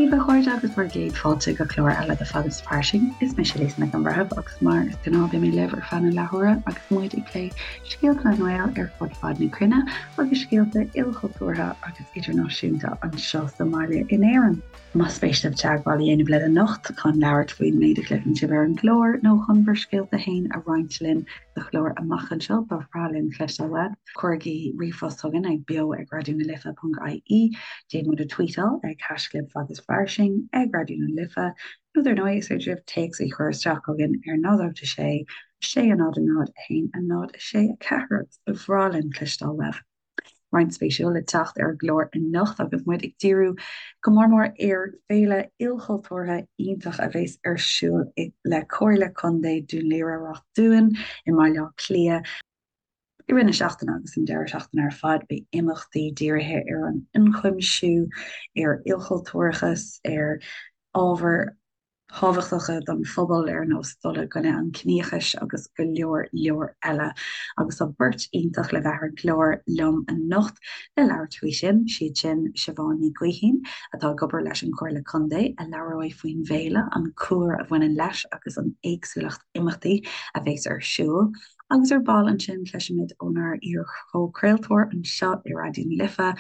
daoibh a chairde agus bhur gcéad fáilte go clár eile de Fad is Fairsing. Is mise Lisa Nic an Bhreithimh agus mar is gnáth beidh mé libh ar feadh na leathuaire agus muid ag plé scéalta na nGael ar fud fad na cruinne agus scéalta ilchultúrtha agus idirnáisiúnta anseo sa mbaile in Éirinn. Más spéis libh teagmháil a dhéanamh linn anocht chun labhairt faoin méid a chloiseann sibh ar an gclár nó chun bhur scéalta féin a roinnt linn sa chlár amach anseo, ba bhreá linn cloisteáil uaibh. Cuirigí ríomhphost chugainn ag beo ag raidió na life ponc ie, Déan muid a tweetáil ag haischlib fad is fairsing, ag Raidió na Life, nó dar ndóigh is féidir libh téacs a chur isteach chugainn ar 0 8 6 6 0 0 1 0 6 4 agus ba bhreá linn cloisteáil uaibh. Roinnt spéisiúil le teacht ar an gclár anocht agus muid ag díriú go mór mór ar féile ilchultúrtha iontach a bheas ar siúl le Comhairle Contae Dún Laoghaire-Rath Dúin i mBaile Átha Cliath i rith na seachtaine agus an deireadh seachtaine ar fad. Beidh imeachtaí dírithe ar an ionchuimsiú, ar ilchultúrachas, ar ábhair thábhachtacha don phobal ar nós dul i gcoinne an chiníochais agus go leor leor eile. Agus tá beirt iontach le bheith ar an gclár liom anocht le labhairt faoi sin, siad sin Siobhán Ní Ghaoithín, atá ag obair leis an Chomhairle Contae, a labhróidh faoin bhféile, an cúlra a bhaineann leis agus an éagsúlacht imeachtaí a bheas ar siúl. Agus ar ball ansin cloisfimid ónár iar-chomhchraoltóir anseo i Raidió na Life,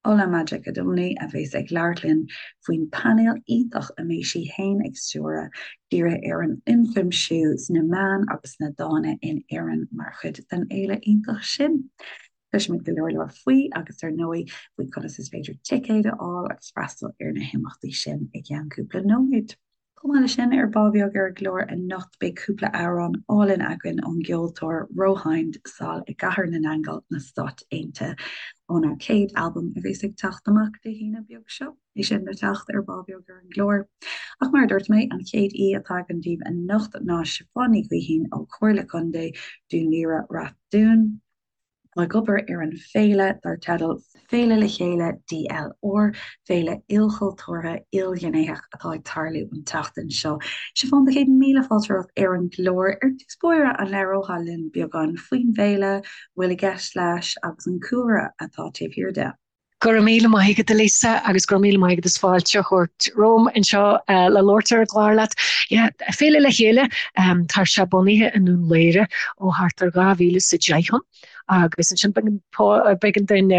Ola Majekodunmi a bheas ag labhairt linn faoin painéal iontach a mbeidh sí féin ag stiúradh, dírithe ar an ionchuimsiú sna meáin agus sna dána in Éirinn mar chuid den fhéile iontach sin. Cloisfimid go leor leor faoi agus ar ndóigh faoi conas is féidir ticéid a fháil agus freastal ar na himeachtaí sin i gceann cúpla nóiméad. Chomh maith leis sin, ar ball beag ar an gclár anocht beidh cúpla amhrán álainn againn ón gceoltóir Rohind sall i gCathair na nAingeal na Stáit Aontaithe óna céad albam a bheas ag teacht amach Dé hAoine beag seo. É sin le teacht ar ball beag ar an gclár. Ach mar a dúirt mé, an chéad aoi atá againn daoibh anocht ná Siobhán Ní Ghaoithín ó Chomhairle Contae Dún Laoghaire-Rath Dúin. ag obair ar an bhféile dar teideal Féile Le Chéile DLR, féile ilchultúrtha, ilghnéitheach atá ag tarlú an tseachtain seo. Siobhán, céad míle fáilte romhat ar an gclár. Ar dtús báire, an labhrófá linn beagán faoin bhféile, a bhfuil i gceist leis agus an cúlra atá taobh thiar de? Go raibh míle maith agat, a Lisa, agus go raibh míle maith agat as fáilte a thabhairt romham anseo le labhairt ar an gclár leat. Yeah, Féile Le Chéile, tá sé bunaithe i nDún Laoghaire ó thart ar 2010 ann agus ansin b'éigean dúinn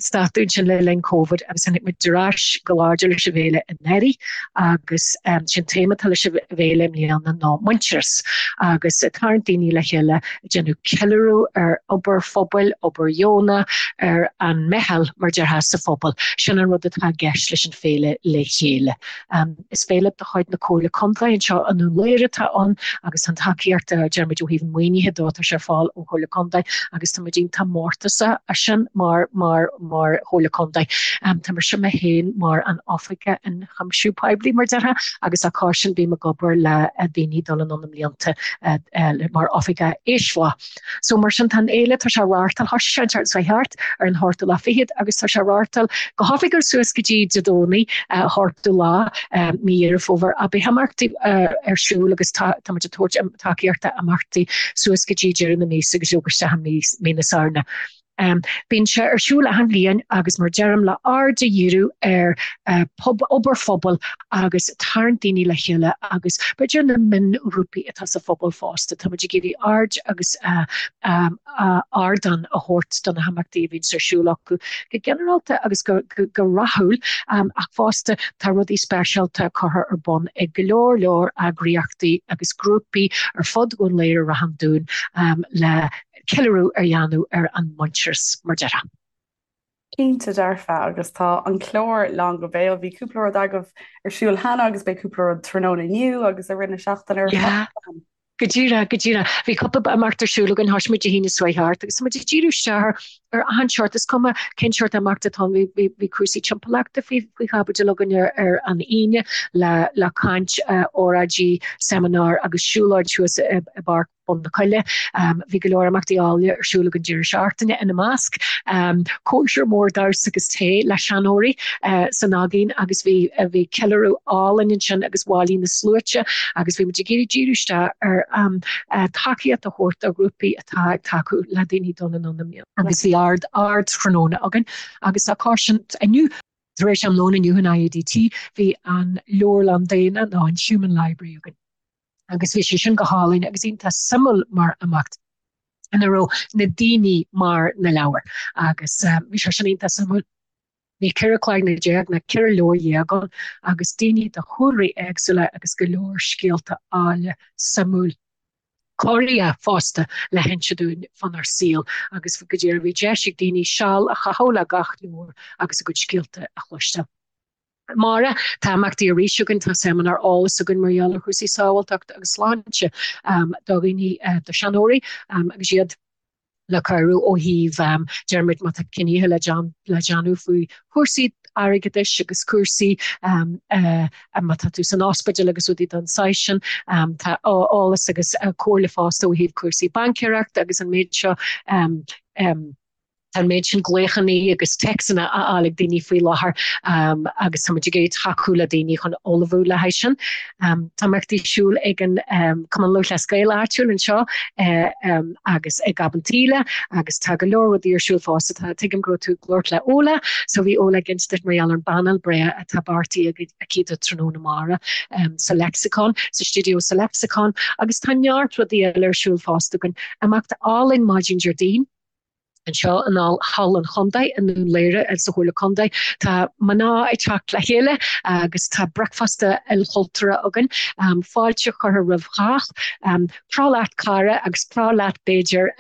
stadadh ansin le linn Covid agus tháinig muid ar ais go láidir leis an bhféile anuraidh agus sé'n téama atá leis an bhféile i mbliana ná muintearas agus ag tarraingt daoine le chéile ag déanamh ceiliúradh ar obair phobail, obair dheonach, ar an meitheal, mar déarfá, sa phobal. Sin an rud atá i gceist leis an Féile Le Chéile. Is féile de chuid na Comhairle Contae anseo i nDún Laoghaire atá ann agus tá an tacaíocht, deir muid, ó thaobh an mhaoinithe dó, tá sé ar fáil ón Chomhairle Contae agus tá muid iontach mórtasach as sin mar, mar, mar Chomhairle Contae. Tá mise mé féin mar an Oifigeach Ionchuimsiú Poiblí, mar déarfá, agus dá chois sin bím ag obair le daoine dul anonn i mblianta mar Oifigeach Aoisbhá. So mar sin tá an fhéile, tá sé á reáchtáil, thoisigh sé an tseachtain seo thart ar an ochtú lá fichead agus tá sé á reáchtáil go hoifigiúil suas go dtí Dé Domhnaigh, ochtú lá, mí Dheireadh Fómhair. Ach beidh imeachtaí ar siúl agus tá muid ag tabhairt tacaíochta imeachtaí suas go dtí deireadh na míosa agus leoga isteach i mí na Samhna. Bíonn sé ar siúl achan bhliain agus mar deirim le aird a dhíriú ar obair phobail agus tarraingt daoine le chéile agus b'fhéidir na mionghrúpaí atá sa phobal fosta. Tá muid ag iarraidh aird agus ardán a thabhairt do na himeachtaí a bhíonns ar siúl acu go ginearálta agus go rathúil ach fosta tá rudaí speisialta curtha ar bun ag go leor leor eagraíochtaí agus grúpaí ar fud Dhún Laoghaire-Ráth an Dúin le ceiliúradh a dhéanamh ar an muintearas, mar déarfá. Cinnte dearfa, agus tá an clár lán go béal. Bhí cúpla rud agaibh ar siúl cheana agus beidh cúpla rud tráthnóna inniu agus i rith na seachtaine ar fad. Go díreach, go díreach. Bhí cúpla imeacht ar siúl againn, thoisigh muid Dé haoine seo thart agus tá muid ag díriú isteach ar achan seort, is cuma cén seort imeacht atá ann, bhí, bhí cúrsaí timpeallachta faoi, faoi chaibidil againn ar, ar an Aoine le, le caint, óráidí, seimineár agus siúlóid thuas i, i bPáirc Bun na Coille. Bhí go leor imeachtaí áille ar siúl ag an deireadh seachtaine, ina measc, cóisir mhór damhsa agus tae le seanóirí san Aigéan agus bhí bhí ceiliúradh álainn ansin agus bhailigh na sluaite agus bhí muid ag iarraidh díriú isteach ar tacaíocht a thabhairt do ghrúpaí atá ag tacú le daoine dul anonn i mbliana. Agus bhí ard ardtráthnóna againn agus dá chois sin inniu. Tar éis am lóin inniu in IADT bhí an Leabharlann Daonna nó an Human Library againn agus bhí sé sin go hálainn agus iontach suimiúil mar imeacht ina raibh na daoine mar na leabhair agus bhí sé sin iontach suimiúil. Bhí 14 cloigne nó 14 leabhar ann agus daoine de chúlraí éagsúla agus go leor scéalta áille suimiúil. corraitheach fosta le hinse dúinn fánár saol agus go díreach bhí deis ag daoine seal a chaitheamh le gach leabhar agus a gcuid scéalta a chloisteáil. Amárach, tá imeachtaí arís againn, tá seimineár eolais againn mar gheall ar chúrsaí sábháilteachta agus sláinte do dhaoine, do sheanóirí agus iad le cabhrú ó thaobh, deir muid, má tá cinntí le déanamh faoi chúrsaí airgeadais agus cúrsaí má tá tú san ospidéal agus rudaí den saghas sin. Tá eolas agus comhairle fosta ó thaobh cúrsaí baincéireachta agus an méid seo. Tá an méid sin glaochanna agus téacsanna á fháil ag daoine faoi láthair agus tá muid ag iarraidh tacú le daoine chun ullmhú le haghaidh sin. Tá imeachtaí ar siúl ag an Cumann Lúthchleas Gael áitiúil anseo agus ag Gob an tSíle agus tá go leor rudaí ar siúl fosta. Tá, tuigim go raibh tú ag labhairt le Ola, so bhí Ola ag inse duit mar gheall ar an bpainéal breá atá beartaithe aici do tráthnóna amárach sa Lexicon, sa stiúideo sa Lexicon agus tá neart rudaí eile ar siúl fosta againn. Imeacht álainn maidin Déardaoin. Anseo in Halla an Chontae i nDún Laoghaire sa Chomhairle Contae tá mná ag teacht le chéile agus tá bricfeasta ilchultúrtha againn. Fáilte curtha roimh chách. Croch leat cara agus croch leat b'fhéidir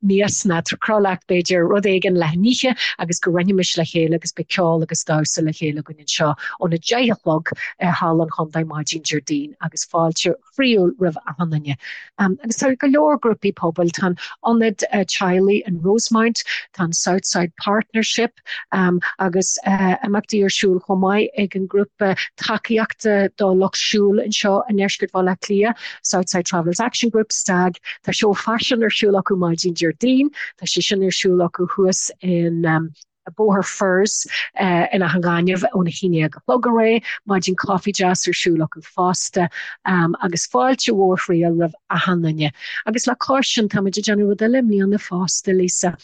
mias nó croch leat b'fhéidir rud éigin le n-ithe agus go roinnfimis le chéile agus beidh ceol agus damhsa le chéile againn anseo óna 10 a chlog i Halla an Chontae maidin Déardaoin agus fáilte chroíúil roimh achan duine. Agus tá go leor grúpaí pobail, tá an Ionad Teaghlaigh in Rosemount, tá an Southside Partnership agus imeachtaí ar siúl chomh maith ag an ngrúpa tacaíochta do lucht siúil anseo i ndeisceart Bhaile Átha Cliath, Southside Travellers Action Group, STAG. Tá seó faisin ar siúl acu maidin Déardaoin, tá sé sin ar siúl acu thuas in. Bóthar Firs in Áth an Ghainimh óna 11 a chlog ar aghaidh, maidin coffee deas ar siúl acu fosta agus fáilte mhór chroíúil roimh achan duine. Agus le cois sin, tá muid ag déanamh rud eile i mbliana fosta, Lisa.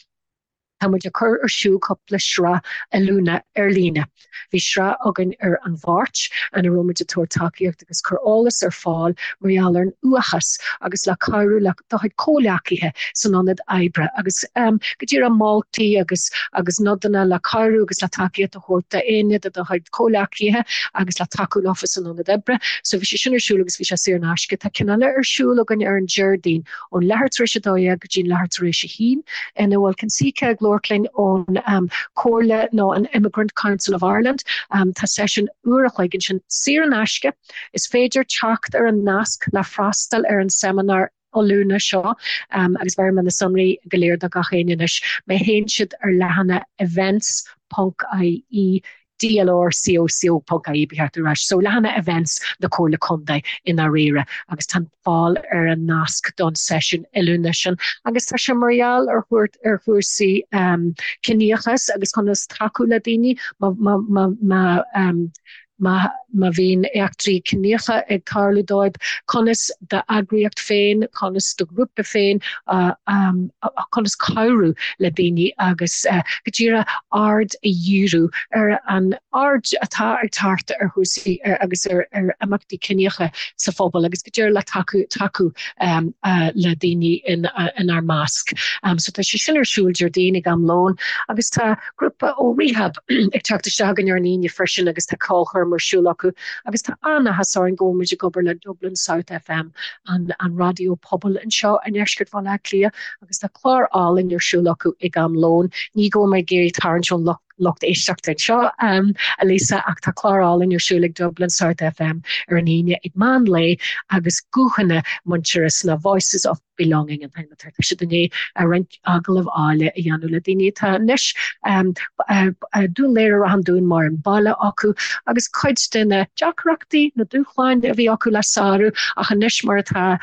Tá muid ag cur ar siúl cúpla sraith oiliúna ar líne. Bhí sraith againn ar an Mháirt ina raibh muid ag tabhairt tacaíocht agus cur eolas ar fáil mar gheall ar an uathachas agus le cabhrú le do chuid comhghleacaithe san ionad oibre agus go díreach moltaí agus agus nodanna le cabhrú agus le tacaíocht a thabhairt d'éinne de do chuid comhghleacaithe agus le tacú leofa san ionad oibre. So bhí sé sin ar siúl agus bhí sé saor in aisce. Tá ceann eile ar siúl againn ar an Déardaoin ón leathuair tar éis a 12 go dtí an leathuair tar éis a haon ina bhfuil Consica ag labhairt linn ón Comhairle nó an Immigrant Council of Ireland. Tá seisiún uair a chloig ansin saor in aisce. Is féidir teacht ar an nasc le freastal ar an seimineár oiliúna seo agus bhéarfaidh mé na sonraí go léir do gach éinne anois má théann siad ar leathanach events.ie dlrcoco.ie ba cheart a rá so leathanach events na Comhairle Contae i ndáiríre agus tá fáil ar an nasc don seisiún oiliúna sin agus tá sé mar gheall ar thabhairt ar chúrsaí ciníochas agus conas tacú le daoine má má má má má má bhíonn eachtraí ciníocha ag tarlú dóibh, conas d'eagraíocht féin, conas do ghrúpa féin, conas cabhrú le daoine agus go díreach aird a dhíriú ar an aird atá ag teacht ar chúrsaí agus ar imeachtaí ciníocha sa phobal agus go díreach le tacú tacú le daoine inár measc. So tá sé sin ar siúl Déardaoin ag am lóin agus tá grúpa ó Rehab ag teacht isteach againn ar an Aoine freisin agus tá ceolchoirm ar siúl acu agus tá an-áthas orainn go bhfuil muid ag obair le Dublin South FM, an an raidió pobail anseo i ndeisceart Bhaile Átha Cliath agus tá clár álainn ar siúl acu ag am lóin. Ní go bhfuil mé ag iarraidh tarraingt ón lucht lucht éisteachta anseo, a Lisa, ach tá clár álainn ar siúl ag Dublin South FM ar an Aoine ag meán lae agus guthanna muintearas na Voices of Belonging an t-ainm atá air. Tá siad i ndiaidh roinnt agallamh áille a dhéanamh le daoine atá anois Dún Laoghaire Ráth an Dúin mar an baile acu agus cuid de na deacrachtaí, na dúshláin a bhí acu le sárú ach anois mar atá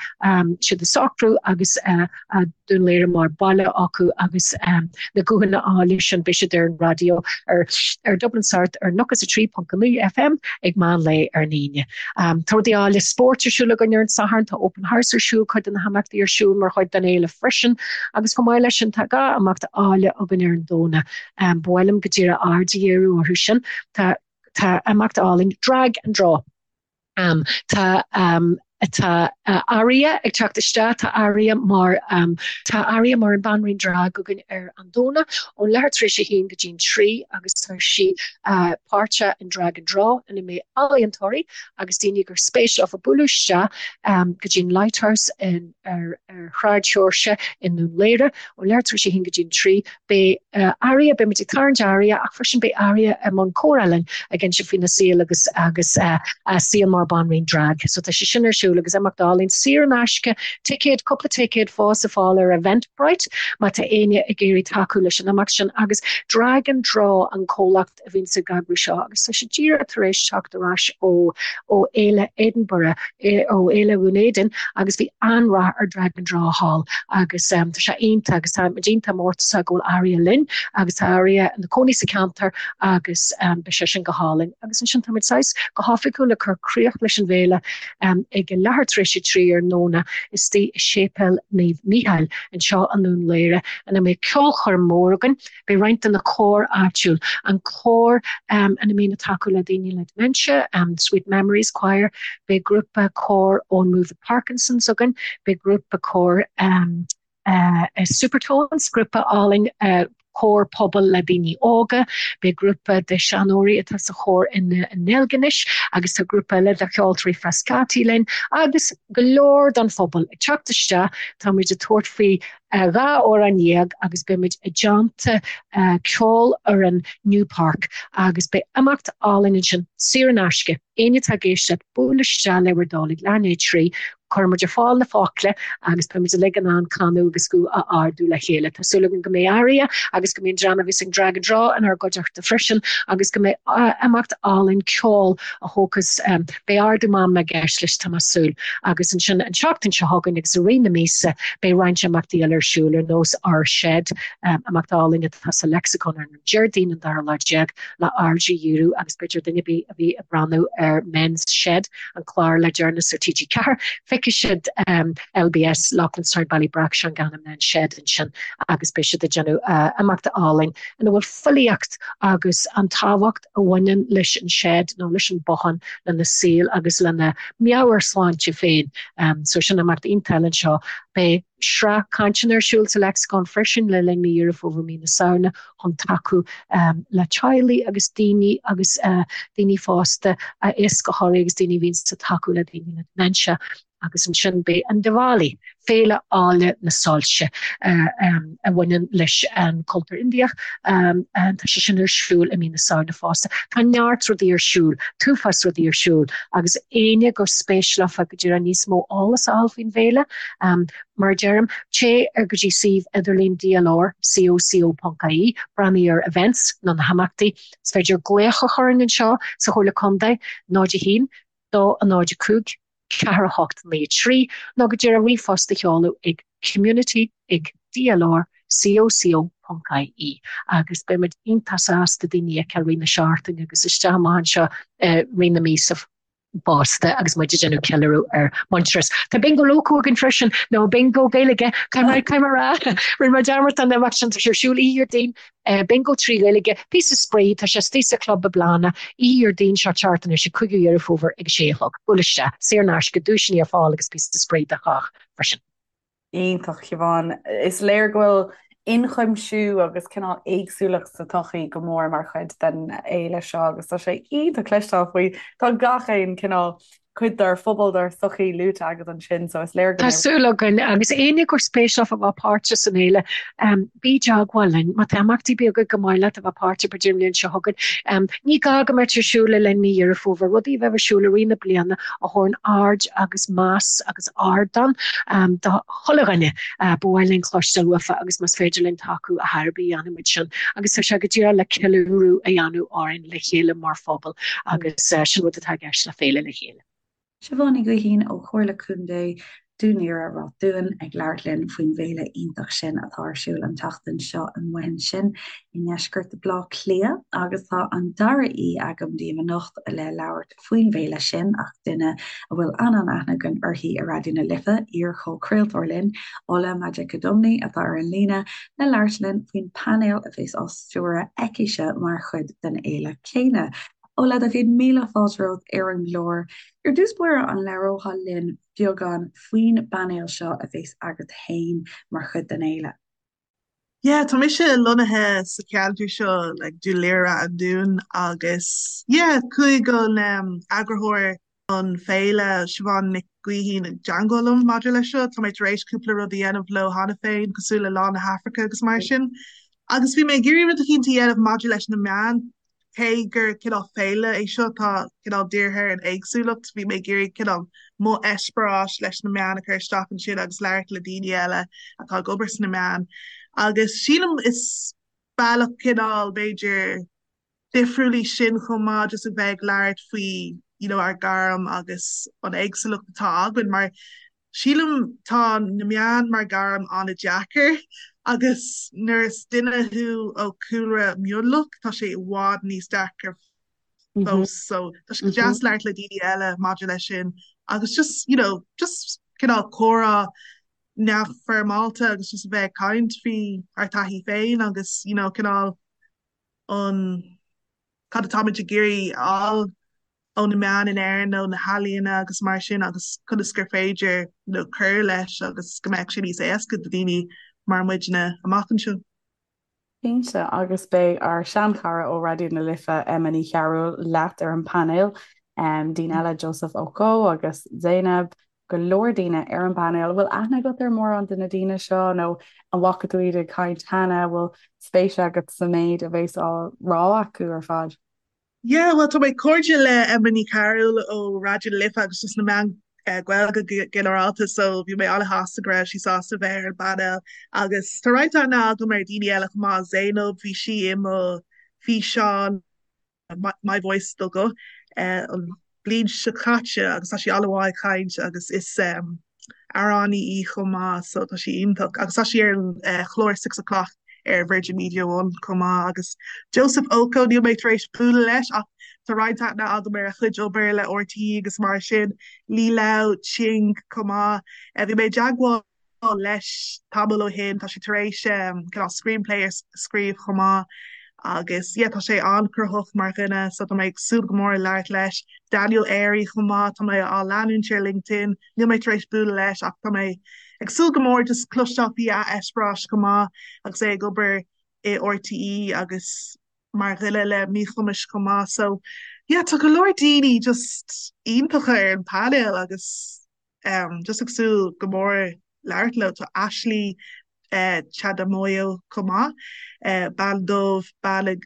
siad ag socrú agus Dún Laoghaire mar baile acu agus na guthanna áille sin beidh siad ar an raidió. ar ar Dublin South ar 93.9 FM ag meán lae ar an Aoine. Tá rudaí áille spóirt ar siúl againn ar an Satharn, tá Open House ar siúl, cuid de na himeachtaí ar siúl mar chuid den fhéile freisin agus chomh maith leis sin tá 2 imeacht áille againn ar an Domhnach. Ba mhaith liom go díreach aird a dhíriú orthu sin. Tá tá imeacht álainn Drag and Draw. Tá tá Aria ag teacht isteach, tá Aria mar tá Aria mar an banríon drag againn ar an Domhnach ón leathuair tar éis a haon go dtí'n 3 agus tá sí páirteach in Drag and Draw ina mbeidh ealaíontóirí agus daoine gur spéis leofa bualadh isteach go dtí'n Lighthouse in ar Shráid Sheoirse i nDún Laoghaire ón leathuair tar éis a haon go dtí'n 3. Beidh Aria, beidh muid ag tarraingt Aria ach freisin beidh Aria i mbun comhrá linn ag inse faoina saol agus agus a saol mar banríon drag. So tá sé sin ar siúl agus imeacht álainn saor in aisce, ticéad, cúpla ticéad fós ar fáil ar Eventbrite má tá éinne ag iarraidh tacú leis an imeacht sin agus Drag and Draw an comhlacht a bhíonns ag eagrú seo agus tá sé díreach tar éis teacht ar ais ó ó Fhéile Edinburgh, ó Fhéile Dhún Éideann agus bhí an-rath ar Drag and Draw thall agus tá sé iontach agus tá muid iontach mórtasach go bhfuil Aria linn agus tá Aria ina cónaí sa cheantar agus beidh sé sin go hálainn. Agus ansin tá muid saghas go hoifigiúil ag cur críoch leis an bhféile ag a leathuair tar éis a 3 ar an nDomhnach istigh i Séipéal Naomh Mícheál anseo i nDún Laoghaire ina mbeidh ceolchoirm mór againn. Beidh roinnt de na cóir áitiúil, an cór ina mbíonn ag tacú le daoine le dementia, Sweet Memories Choir, beidh grúpa cóir ón Move It Parkinson's againn, beidh grúpa cóir Supertones, grúpa álainn cór pobail le daoine óga, beidh grúpa de seanóirí atá sa chór i nDeilginis agus tá grúpa eile de cheoltóirí Frascati linn agus go leor den phobal ag teacht isteach, tá muid ag tabhairt faoi 12 amhrán agus beidh muid i dteannta ceolfhoireann Newpark agus beidh imeacht álainn ansin, saor in aisce. Éinne atá ag éisteacht, buail isteach le bhur dtoil ag leath i ndiaidh a 3, cuirfidh muid ar fáil na focla agus beidh muid uilig in ann canadh agus guth a ardú le chéile. Tá súil agam go mbeidh Aria agus go mbeidh an dream a bhíos ag Drag and Draw inár gcuideachta freisin agus go mbeidh imeacht álainn ceoil a thógfas Beidh ardú meanma i gceist leis, tá mé ag súil. Agus ansin an tseachtain seo chugainn agus i rith na míosa beidh roinnt imeachtaí eile ar siúl ar nós Our Shed, imeacht álainn atá sa Lexicon ar an Déardaoin an dara lá déag le aird a dhíriú agus b'fhéidir duine ar bith a bhí ag breathnú ar Men's Shed, an clár le deireanas ar TG4, feicfidh siad LBS, Loughlinstown Ballybrack Shanganagh Men's Shed ansin agus beidh siad ag déanamh imeacht álainn ina bhfuil filíocht agus an tábhacht a bhaineann leis an shed nó leis an bothán lena saol agus lena meabhairshláinte féin. So sin imeacht iontach eile anseo. Beidh sraith cainteanna ar siúl sa Lexicon freisin le linn mí Dheireadh Fómhair, mí na Samhna chun tacú le teaghlaigh agus daoine agus daoine fásta, éascaitheoirí agus daoine a bhíonns ag tacú le daoine le dementia. Agus ansin beidh an Diwali, féile áille na soilse a bhaineann leis an cultúr Indiach, tá sé sin ar siúl i mí na Samhna fosta. Tá neart rudaí ar siúl, t-uafás rudaí ar siúl agus éinne gur spéis leofa go díreach níos mó eolas a fháil faoin bhféile, mar a deirim, téigh ar go dtí suíomh idirlín DLR, coco.ie, breathnaigh ar events nó na himeachtaí. Is féidir glaoch a chur orainn anseo sa Chomhairle Contae, 0 1 2 0 5 4 8 9 3 nó go díreach ríomhphost a sheoladh ag community ag dlr coco ponc ie agus beidh muid iontach sásta daoine a fheiceáil i rith na seachtaine agus isteach amach anseo i rith na míosa fosta agus muid ag déanamh ceiliúradh ar Muintearas. Tá Bingo Loco againn freisin, nó Bingo Gaeilge, caithfidh mé a rá, rinne mé dearmad den imeacht sin, tá sé ar siúl oíche Dhéardaoin, Bingo 3 Ghaeilge, píosa spraoi, tá sé istigh sa chlub i mBláthanna, oíche Dhéardaoin seo teacht anois, an 5ú Dheireadh Fómhair ag a sé a chlog. Buail isteach, saor in aisce, duaiseanna ar fáil agus píosa spraoi do chách freisin. Iontach, Siobhán. Is léir go bhfuil ionchuimsiú agus cineál éagsúlacht sa tsochaí go mór mar chuid den fhéile seo agus tá sé iontach cloisteáil faoi. Tá gach aon cineál cuid dár phobal, dár sochaí luaite agat ansin, so is léir go Tá súil againn, agus éinne gur spéis leofa bheith páirteach san fhéile, bí i dteagmháil linn. Má tá imeachtaí beaga gur maith leat a bheith páirteach b'fhéidir an bhliain seo chugainn, ní gá go mbeadh ar siúl le linn mí Dheireadh Fómhair, rudaí a bheith ar siúl i rith na bliana a thabharann aird agus meas agus ardán do chuile dhuine. Ba mhaith linn cloisteáil uafa agus más féidir linn tacú a thairbhí, dhéanfaimid sin. Agus tá sé go díreach le ceiliúradh a dhéanamh orainn le chéile mar phobal agus sin rud atá i gceist le Féile le Chéile. Siobhán Ní Ghaoithín ó Chomhairle Contae. Dún Laoghaire Ráth Dúin ag labhairt linn faoin bhféile iontach sin atá ar siúl an tseachtain seo amuigh ansin i ndeisceart Bhaile Átha Cliath agus tá an dara aoi agam daoibh anocht le labhairt faoin bhféile sin ach duine a bhfuil an-an-aithne againn uirthi i Raidió na Life, iar-chomhchraoltóir linn, Ola Majekodunmi atá ar an líne le labhairt linn faoin bpainéal a bheas á stiúradh aicise mar chuid den fhéile céanna. Ola, do chéad míle fáilte romhat ar an gclár. Ar dtús báire, an labhrófá linn beagán faoin bpainéal seo a bheas agat féin mar chuid den fhéile? Yeah, tá mise lonnaithe sa cheantar seo, like Dún Laoghaire an Dún agus yeah, chuaigh an um, eagarthóir an féile Siobhán Nic Gaoithín i dteangmháil liom maidir leis seo. Tá mé tar éis cúpla rud a dhéanamh leo cheana féin, cosúil le Lá na hAfraice agus mar sin. Agus bhí mé ag iarraidh rud eicínt a dhéanamh maidir leis na meáin. Cé gur cineál féile é seo atá cineál dírithe ar an éagsúlacht, bhí mé ag iarraidh cineál mo eispéireas leis na meáin a chur isteach ansin agus labhairt le daoine eile atá ag obair sna meáin. Agus sílim is bealach cineál b'fhéidir difriúil í sin chomh maith just a bheith ag labhairt faoi you know ár gairm agus an éagsúlacht atá againn mar Sílim tá na meáin mar gairm an-deacair agus nuair is duine thú ó chúlra mionlach tá sé i bhfad níos deacra fós so tá sé go deas labhairt le daoine eile maidir leis sin agus just you know just cineál comhrá neamhfhoirmeálta agus just a bheith ag caint faoi ár taithí féin agus you know cineál an cad atáimid ag iarraidh a fháil ó na meáin in Éirinn nó na healaíona agus mar sin agus conas gur féidir you know cur leis agus go mbeadh sé níos éasca do daoine mar muidne amach anseo. Cinnte, agus beidh ár seanchara ó Raidió na Life, Emma Ní Chearúil, leat ar an bpainéal, daoine eile, Joseph Oko agus Zainab, go leor daoine ar an bpainéal. An bhfuil aithne agat ar mórán de na daoine seo nó an bhfaca tú iad ag caint cheana? An bhfuil spéis agat sa méid a bheas á rá acu ar fad? Yeah, bhuel tá mé cairde le Emma Ní Chearúil ó Raidió na Life agus just na meáin Gaeilge go ginearálta so bhí mé an-shásta go raibh sí sásta bheith ar an bpainéal agus tá roinnt aithne agam ar daoine eile chomh maith, Zainab, bhí sí i mo físeán My Voice do Guth an bhliain seo caite agus tá sí an-mhaith ag caint agus is amhránaí í chomh maith so tá sí iontach agus tá sí ar an chlár Six O'Clock ar Virgin Media One chomh maith agus Joseph Oko níl mé tar éis bualadh leis ach tá roinnt aithne agam ar a chuid obair le RTÉ agus mar sin Lee Lau Ching chomh maith. Bhí mé i dteagmháil leis tamall ó shin. Tá sé tar éis cineál screenplay a scríobh chomh maith agus yeah tá sé an-chruthaitheach mar dhuine so tá mé ag súil go mór labhairt leis. Daniel Airey chomh maith, tá mé á leanúint ar LinkedIn, níl mé tar éis bualadh leis ach tá mé ag súil go mór just cloisteáil faoi a eispéireas chomh maith agus é ag obair i RTÉ agus mar dhuine le míchumais chomh maith. So yeah tá go leor daoine just iontacha ar an painéal agus Just ag súil go mór labhairt leo. Tá Ashley Chadamoyo chomh maith, bean dubh, bean a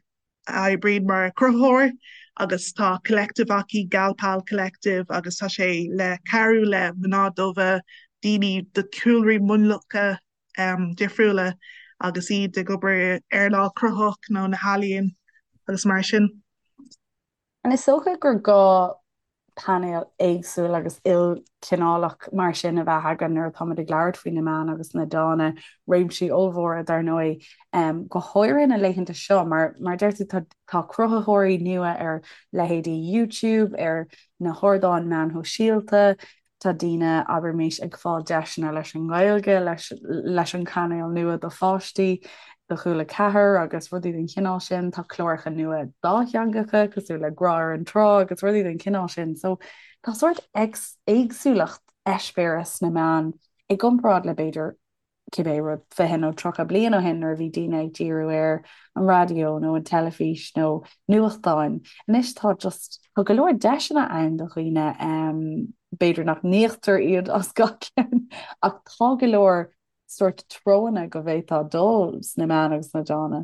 oibríonn mar chruthaitheoir agus tá collective aici, Gal Pal Collective, agus tá sé le cabhrú le mná dubha, daoine de chúlraí mionlacha difriúla agus iad ag obair i earnáil cruthaitheach nó na healaíon agus mar sin. And is dócha gur gá painéal éagsúil agus ilchineálach mar sin a bheith againn nuair atáimid ag labhairt faoi na meáin agus na dána, réimsí ollmhóra dar ndóigh, go háirithe na laethanta seo mar mar deir tú tá tá cruthaitheoirí nua ar leithéidí YouTube, ar na hardáin meáin shóisialta, Tá daoine, abraimis, ag fáil deiseanna leis an nGaeilge, leis leis an cainéal nua do pháistí, do Chúla 4 agus rudaí den chineál sin. Tá cláracha nua dátheangacha cosúil le Grá ar an Trá agus rudaí den chineál sin. So tá sórt éagsúlacht eispéireas sna meáin i gcomparáid le b'fhéidir cibé rud 20 nó 30 bliain ó shin nuair a bhí daoine ag díriú ar an raidió nó an teilifís nó nuachtáin. Anois tá just, tá go leor deiseanna ann do dhaoine, b'fhéidir nach n-íoctar iad as gach ceann ach tá go leor sórt treonna go bhféadfá dul sna meáin agus sna dána.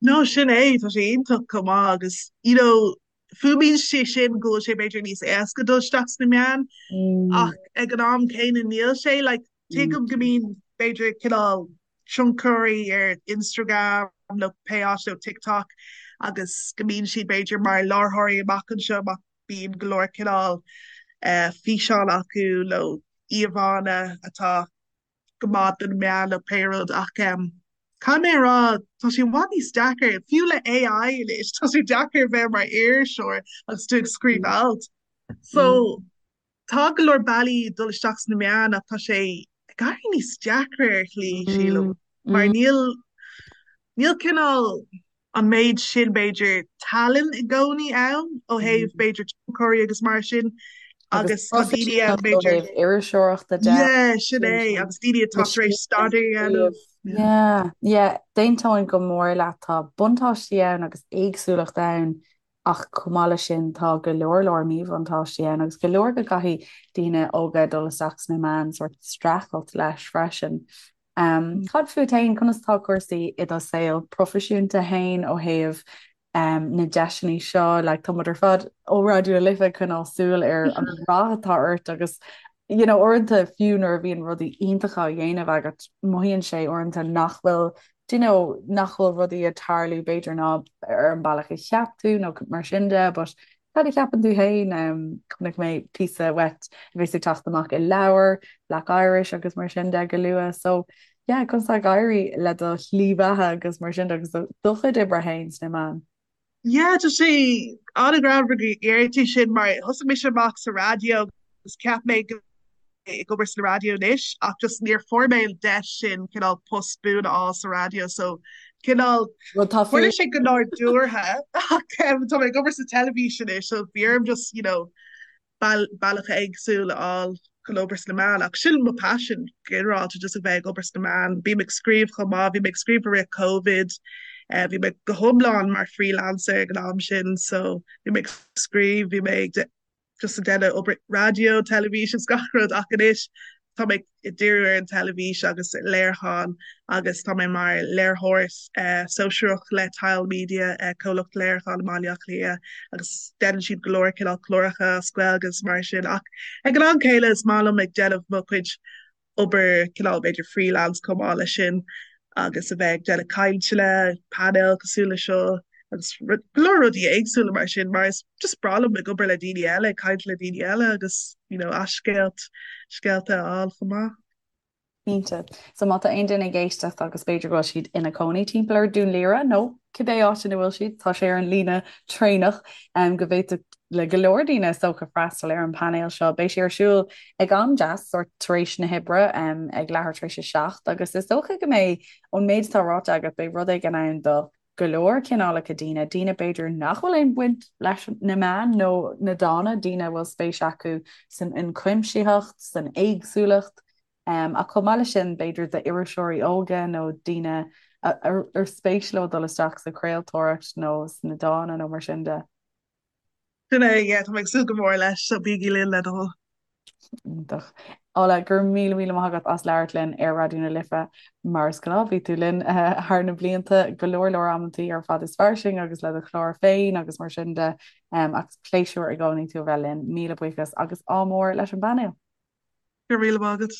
No, sin é, tá sé iontach chomh maith agus, you know, fuaimíonn sé sin go bhfuil sé b'fhéidir níos éasca dul isteach sna meáin ach ag an am céanna níl sé, like, tuigim go mbíonn b'fhéidir cineál tionchairí ar Instagram nó pé áit nó TikTok agus go mbíonn siad b'fhéidir mar láithreoirí amach anseo má bíonn go leor cineál físeán acu nó. íomhánna atá go maith do na meáin nó pé rud ach caithfidh mé a rá tá sé i bhfad níos deacair, fiú le AI anois, tá sé deacair bheith mar iriseoir agus tú ag scríobh alt. So tá go leor bealaí dul isteach sna meáin ach tá sé ag éirí níos deacra ar shlí, sílim, mar níl níl cineál an méid sin, b'fhéidir, tallann i gcónaí ann ó thaobh, b'fhéidir, tionchairí agus mar sin agus tá daoine ann, b'fhéidir. Ó thaobh iriseoireachta de. Yeah, sin é, agus daoine atá tar éis staidéar a dhéanamh. Yeah, yeah, d'aontóinn go mór leat, tá buntáistí ann agus éagsúlacht ann ach chomh maith leis sin tá go leor leor míbhuntáistí ann agus go leor go gcaithfidh daoine óga dul isteach sna meáin sórt streachailt leis freisin. Cad fút féin, conas atá cúrsaí i do saol proifisiúnta féin ó thaobh na deiseanna seo? Like, tá muid ar fad ó Raidió na Life ag coinneáil súil ar an rath atá ort agus you know, uaireanta fiú nuair a bhíonn rudaí iontacha á dhéanamh agat, mothaíonn sé uaireanta nach bhfuil do you know, nach bhfuil rudaí ag tarlú b'fhéidir ná ar an bealach a cheap tú nó mar sin de, but Cad a cheapann tú féin? Chonaic mé píosa uait a bheas ag teacht amach i leabhar, Black Irish agus mar sin de go luath. So yeah, conas tá ag éirí le do shlí bheatha agus mar sin de agus do chuid oibre féin sna meáin? Yeah, tá sé an-ghreannmhar go ndeir tú sin mar thosaigh mise amach sa raidió agus cheap mé go ag obair sa raidió anois ach just níor fuair mé an deis sin cineál post buan a fháil sa raidió so cineál tharla sé go nádúrtha ach tá mé ag obair sa teilifís anois so bhí orm just you know bealach éagsúil a fháil chun obair sna meáin ach sin mo passion ginearálta just a bheith ag obair sna meáin. Bím ag scríobh chomh maith, bhí mé ag scríobh i rith Covid, bhí mé go hiomlán mar freelancer ag an am sin so bhí mé ag scríobh, bhí mé ag just ag déanamh obair raidió, teilifís is gach rud ach anois tá mé ag díriú ar an teilifís agus léiriúchán agus tá mé mar léiritheoir sóisearach le Tile Media, comhlacht léiriúcháin i mBaile Átha Cliath agus déanann siad go leor cineál cláracha as Gaeilge agus mar sin ach ag an am céanna is maith liom ag déanamh mo chuid obair cineál b'fhéidir freelance chomh maith leis sin agus a bheith ag déanamh cainteanna, painéil cosúil le seo agus go leor rudaí éagsúla mar sin mar is just breá liom ag obair le daoine eile, ag caint le daoine eile agus you know a scéalt, scéalta a fháil chomh maith. Cinnte. So má tá aon duine ag éisteacht agus b'fhéidir go bhfuil siad ina cónaí timpeall ar Dún Laoghaire nó cibé áit ina bhfuil siad, tá sé ar an líne traenach go bhféadfadh le go leor daoine is dócha freastal ar an bpainéal seo. Beidh sé ar siúl ag am deas, sórt tar éis na hoibre, ag leathuair tar éis a 7, agus is dócha go mbeidh, ón méid atá ráite agat, beidh rud éigin ann do go leor cineálacha daoine, daoine b'fhéidir nach bhfuil aon bhaint leis na meáin nó na dána, daoine a bhfuil spéis acu san ionchuimsitheacht, san éagsúlacht, ach chomh maith leis sin b'fhéidir d'iriseoirí óga nó daoine ar spéis leo dul isteach sa chraoltóireacht nó sna dána nó mar sin de. Sin é, yeah, tá mé ag súil go mór leis, so bígí linn le do thoil. Iontach. Ola, go raibh míle míle maith agat as labhairt linn ar Raidió na Life. Mar is gnáth, bhí tú linn thar na blianta go leor leor amantaí ar Fad is Fairsing agus le do chlár féin agus mar sin de. Ach is pléisiúr i gcónaí tú a bheith linn. Míle buíochas agus ádh mór leis an bpainéal. Go raibh míle maith agat.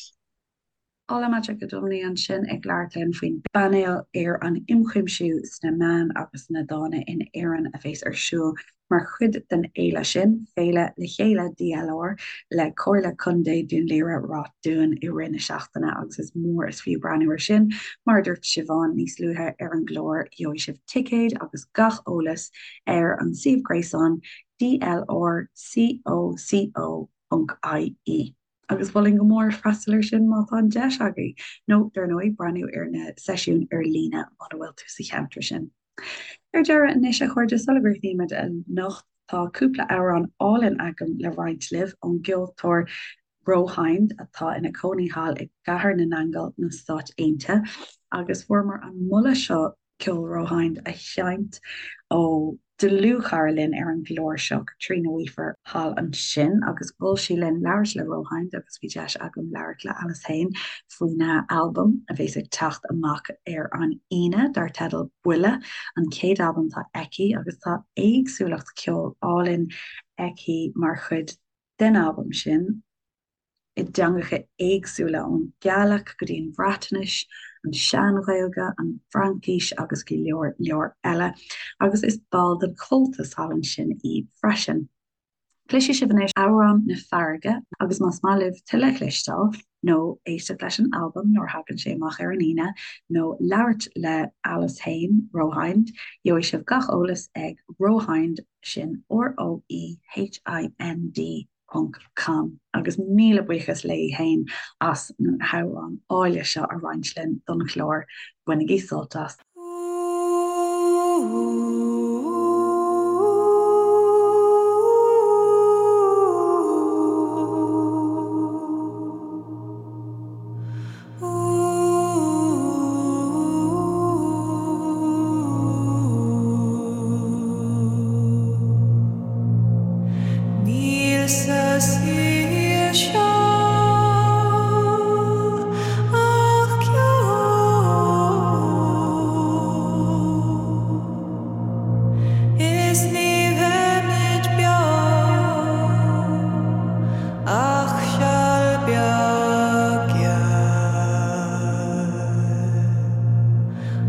Ola Majekodunmi ansin ag labhairt linn faoin bpainéal ar an ionchuimsiú sna meáin agus sna dána in Éirinn a bheas ar siúl mar chuid den fhéile sin, Féile Le Chéile DLR le Comhairle Contae Dún Laoghaire-Ráth Dúin i rith na seachtaine agus is mór is fiú breathnú air sin. Mar a dúirt Siobhán níos luaithe ar an gclár, gheobhaidh sibh ticéid agus gach eolas ar an suíomh gréasáin dlrcoco. ie. Agus mholfainn go mór freastal air sin má tá an deis agaibh, nó dar ndóigh breathnú ar na seisiúin ar líne muna bhfuil tú sa cheantar sin. Ar deireadh anois, a chairde, sula gcríochnaímid anocht, tá cúpla amhrán álainn agam le roinnt libh ón gceoltóir Rohind, atá ina cónaí thall i gCathair na nAingeal, na Stáit Aontaithe, agus fuaireamar an moladh seo ceol Rohind a sheinnt ó dlúthchara linn ar an gclár seo, Caitríona Weafer, thall ansin agus mhol sí linn labhairt le Rohind agus bhí deis agam labhairt le Alice féin faoina albam a bheas ag teacht amach ar an Aoine dar teideal Buile, an chéad albam atá aici agus tá éagsúlacht ceoil álainn aici mar chuid den albam sin. i dteangacha éagsúla, ón Ghaeilge go dtí an Bhreatnais, an Sean-Ghaeilge, an Fhraincis agus go leor leor eile, agus is ball den Chomhaltas thall ansin í freisin. Cloisfidh sibh anois Amhrán na Farraige agus más maith libh tuilleadh a chloisteáil nó éisteacht leis an albam nuair a thagann sé amach ar an Aoine nó labhairt le Alice fhéin, Rohind, gheobhaidh sibh gach eolas ag Rohind, sin R-O-E-H-I-N-D ponc com. Agus míle buíochas léi fhéin as na hamhráin áille seo a roinnt linn don chlár. Bainigí sult as! Níl sa saol seo ach ceo. Is ní bheimid beo ach seal beag gearr.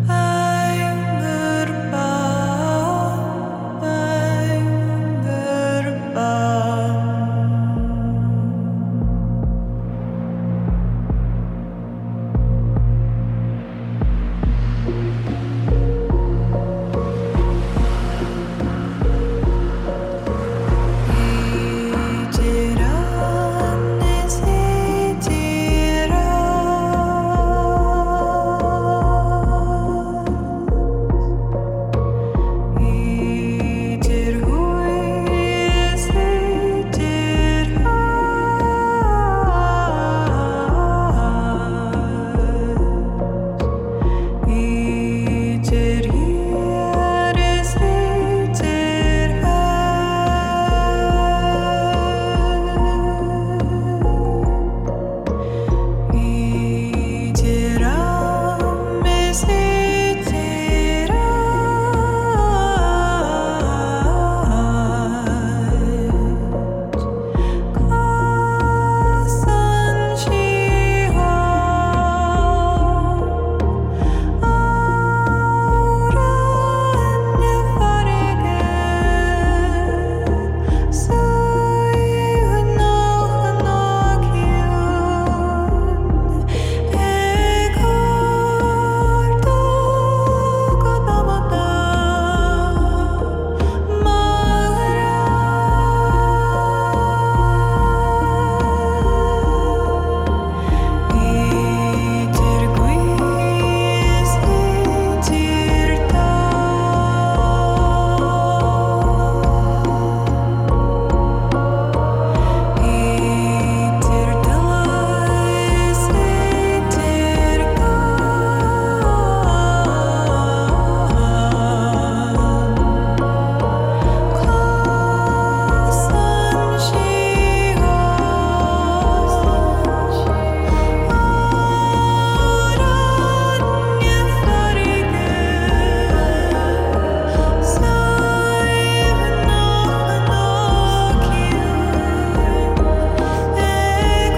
Bangor bán, Bangor bán. Idir ann is idir as, Idir thuaidh is idir theas, Idir thiar is idir theas. Idir am is idir áit, Casann sí Amhrán na farraige, Suaimhneach ná ciúin, Ag ardú go damanta, Mo ghrá. Idir gaoth is idir domhan, Idir tuile is idir ghleann, Casann sí Amhrán na farraige, Suaimhneach ná ciúin, Ag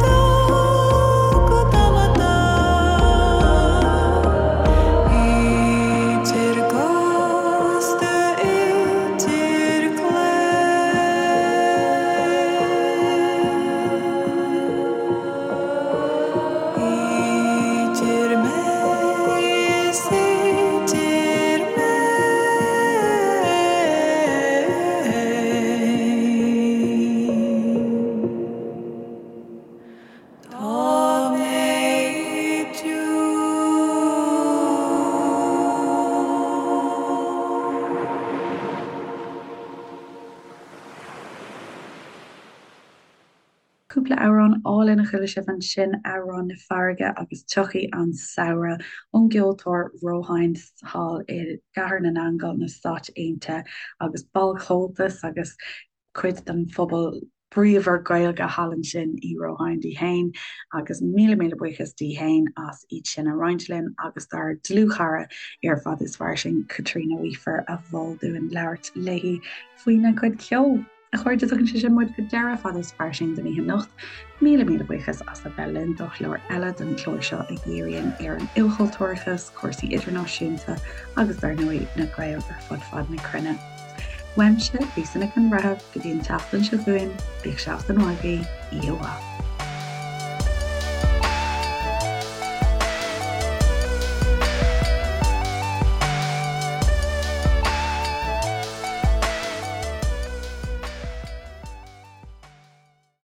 ardú go damanta, Idir gcósta, idir Idir mé is idir mé. Tá mé Cúpla amhrán álainn a chuala sibh ansin, Amhrán na Farraige agus Tiocfaidh an Samhradh ón gceoltóir Rohind thall i gCathair na nAingeal na Stáit Aontaithe agus ball Chomhaltas agus cuid den phobal bríomhar Gaeilge thall ansin í Rohind í fhéin agus míle míle buíochas di fhéin as iad sin a roinnt linn agus dár dlúthchara ar Fada is Fairsing, Caitríona Weafer a mhol dúinn labhairt léi faoina cuid ceoil. A chairde, tugann sé sin muid go deireadh Fada is Fairsing don oíche anocht. Míle míle buíochas as a bheith linn do chlár eile den chlár seo a dhíríonn ar an ilchultúrachas, cúrsaí idirnáisiúnta agus dar ndóigh na Gaeil ar fud fad na cruinne. Uaimse, Lisa Nic an Bhreithimh, go dtí an tseachtain seo chugainn, bíodh seachtain mhaith agaibh, oíche mhaith.